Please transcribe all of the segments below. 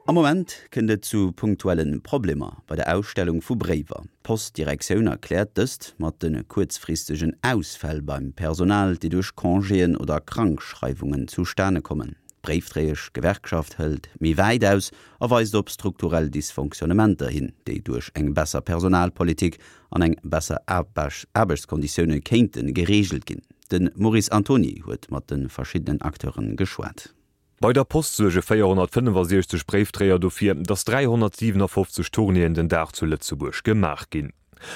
Am Moment kënnt et zu punktuelle Problemer bei der Ausstellung vu Bréiwer. D'Postdirektioun erkläert dëst mat de kuerzfristegen Ausfäll beim Personal, déi duerch Congéen oder Krankschreiwungen zustane kommen. D'Bréifdréiesch-Gewerkschaft hëlt méi wäit aus a weist op strukturell Dysfonctionnementer hin, déi duerch eng besser Personalpolitik an eng besser Aarbechtskonditioune kéinte gereegelt ginn. De Maurice Antoni huet mat de verschiddenen Acteure geschwat. Bei der Post suerge 465 Bréifdréier dofir, datt 357 Tournéeën den Dag zu Lëtzebuerg gemaach ginn.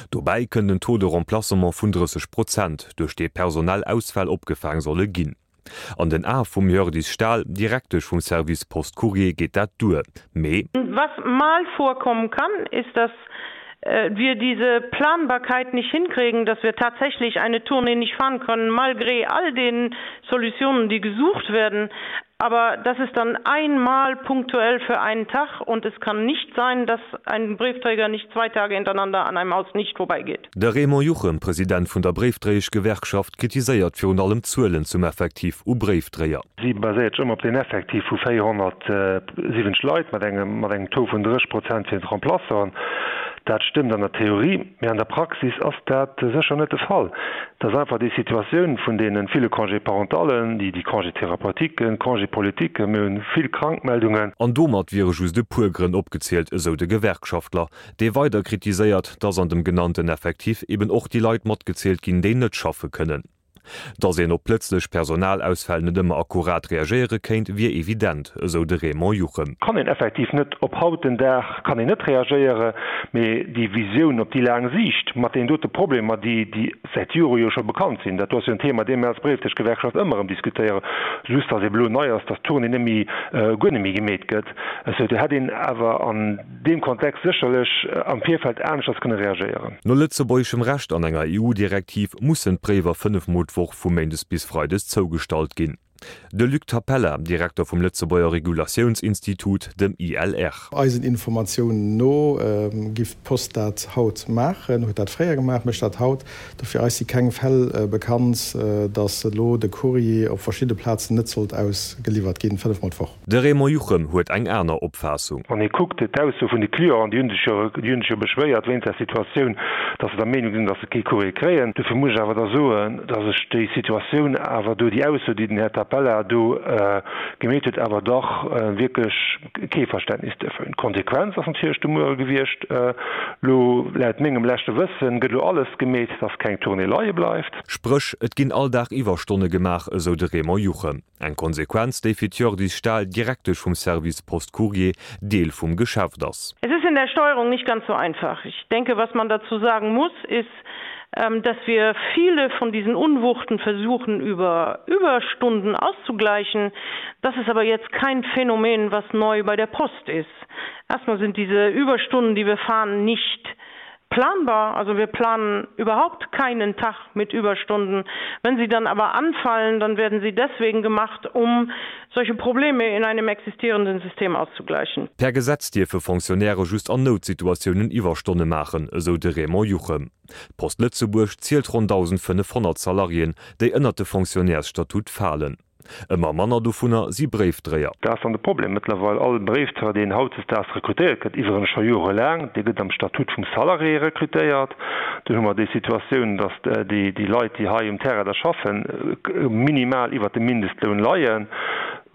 Dobäi kënnt en Taux de remplacement vun 30 Prozent, duerch dee personell Ausfäll opgefaang solle ginn. An den Ae vum Hjördis Stahl, Direktesch vum Service Post Courrier, geet dat duer, mee. Was mal vorkommen kann, ist, dass wir diese Planbarkeit nicht hinkriegen, dass wir tatsächlich eine Tournee nicht fahren können, malgré all den Solutionen, die gesucht werden. Aber das ist dann einmal punktuell für einen Tag und es kann nicht sein, dass ein Briefträger nicht zwei Tage hintereinander an einem Haus nicht vorbeigeht. De Raymond Juchem, President vun der Bréifdréieschgewerkschaft, kritiséiert virun allem d'Zuelen zum Effektiv u Bréifdréier. Si baséiert sech ëmmer op den Effektiv vu 470 Leit mat engem mat engem Taux vun 30 Prozent fir d'Remplaçanten. Dat stëmmt an der Theorie, mee an der Praxis ass dat sécher net de Fall. Et ass einfach déi Situatioun vun deene ville Congés parentallen, déi déi Congés thérapeutiquen, Congés politiques, mir hunn vill Krankmeldungen. An domat wiere just e puer Grënn opgezielt, esou de Gewerkschaftler, dee weider kritiséiert, dass an dem genannten Effektif eben och déi Leit matgezielt ginn, déi net schaffe kënnen. Datt een op plëtzlech Personalausfäll net ëmmer akkurat reagéiere kéint, wier evident, esou de Raymond Juchem. Kann een effektiv net op haut den Dag kann een net reagéiere, mee déi Visioun op déi laang Siicht mat deenen dote Problemer, déi déi säit Jore jo scho bekannt sinn, dat do ass jo en Thema, dee mir als Bréifdëschgewerkschaft ëmmer erëm diskutéieren, just datt ebe lo nei ass, datt d'Tournée net méi, guer net méi gemeet gëtt, esou do hätt een awer an. deem Kontext sécherlech am Virfeld aneschters kënne reagéieren. No lëtzebuergeschem Recht an enger EU-Direktiv mussen d'Bréiwer 5 Mol d'Woch vu méindes bis freides zougestallt ginn. De Luc Tapella, Direkter vum Lëtzebuerger Regulatiounsinstitut, dem ILR. Eisen Informatiounen no giff d'Post dat haut maachen, huet dat fréier gemaach, mécht dat haut. Dofir eis si keng Fäll bekannt, datt elo de Courrier op verschidde Plazen net sollt ausgeliwwert ginn, 5 mol d'Woch. De Raymond Juchem huet eng aner Opfaassung. Wann ee kuckt d'Ausso vun de Clienten, déi hunn sech jo, déi hunn sech jo beschwéiert wéinst der Situatioun, datt se der Meenung sinn, datt se kee Courrier kréien. Dofir muss ech awer da soen, datt ech déi Situatioun awer do, déi Ausso, déi den Här Tapella do gemeet huet, awer dach wierklech kee Verständnis duerfir hunn. D'Konsequenz ass natierlech de Muere gewiescht, elo laut mengem leschte Wëssen gëtt elo alles gemeet, datt keng Tournée leie bleift. Spréch, et ginn all Dag Iwwerstonne gemaach, esou de Raymond Juchem. Eng Konsequenz, déi fir d'Hjördis Stahl, Direktesch vum Service Post Courrier, Deel vum Geschäft ass. Es ist in der Steuerung nicht ganz so einfach. Ich denke, was man dazu sagen muss, ist, dass wir viele von diesen Unwuchten versuchen, über Überstunden auszugleichen. Das ist aber jetzt kein Phänomen, was neu bei der Post ist. Erstmal sind diese Überstunden, die wir fahren, nicht planbar. Also wir planen überhaupt keinen Tag mit Überstunden. Wenn sie dann aber anfallen, dann werden sie deswegen gemacht, um solche Probleme in einem existierenden System auszugleichen. Per Gesetz dierfe Fonctionnairë just an Noutsituatiounen Iwwerstonne maachen, esou de Raymond Juchem. D'Post Lëtzebuerg zielt ronn 1.500 Salariéen, déi ënnert de Fonctionnaires-Statut falen. Ëmmer manner dovunner si Bréifdréier. Dat ass dann de Problem mëttlerweil. All Bréifdréier, deen hautdesdaags rekrutéiert gëtt, iwwerens scho jorelaang, dee gëtt am Statut vum Salarié rekrutéiert. Dunn hu mer déi Situatioun, datt déi Leit, déi hei um Terrain da schaffen, minimal iwwert dem Mindestloun leien,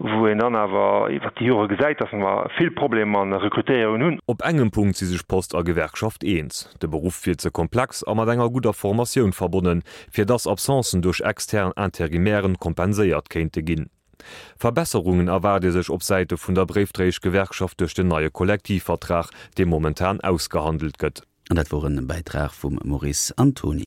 wou een dann awer iwwert déi Jore gesäit, datt mer vill Problemer an der Rekrutéierung hunn. Op engem Punkt si sech Post a Gewerkschaft eens, De Beruff wier ze komplex a mat enger gudder Formatioun verbonnen, fir dass Absencen duerch extern Interimairen kompenséiert kéinte ginn. Verbesserungen erwaart ee sech op Säite vun der Bréifdréieschgewerkschaft duerch den neie Kollektivvertrag, dee momentan ausgehandelt gëtt. An dat wor en Bäitrag vum Maurice Antony.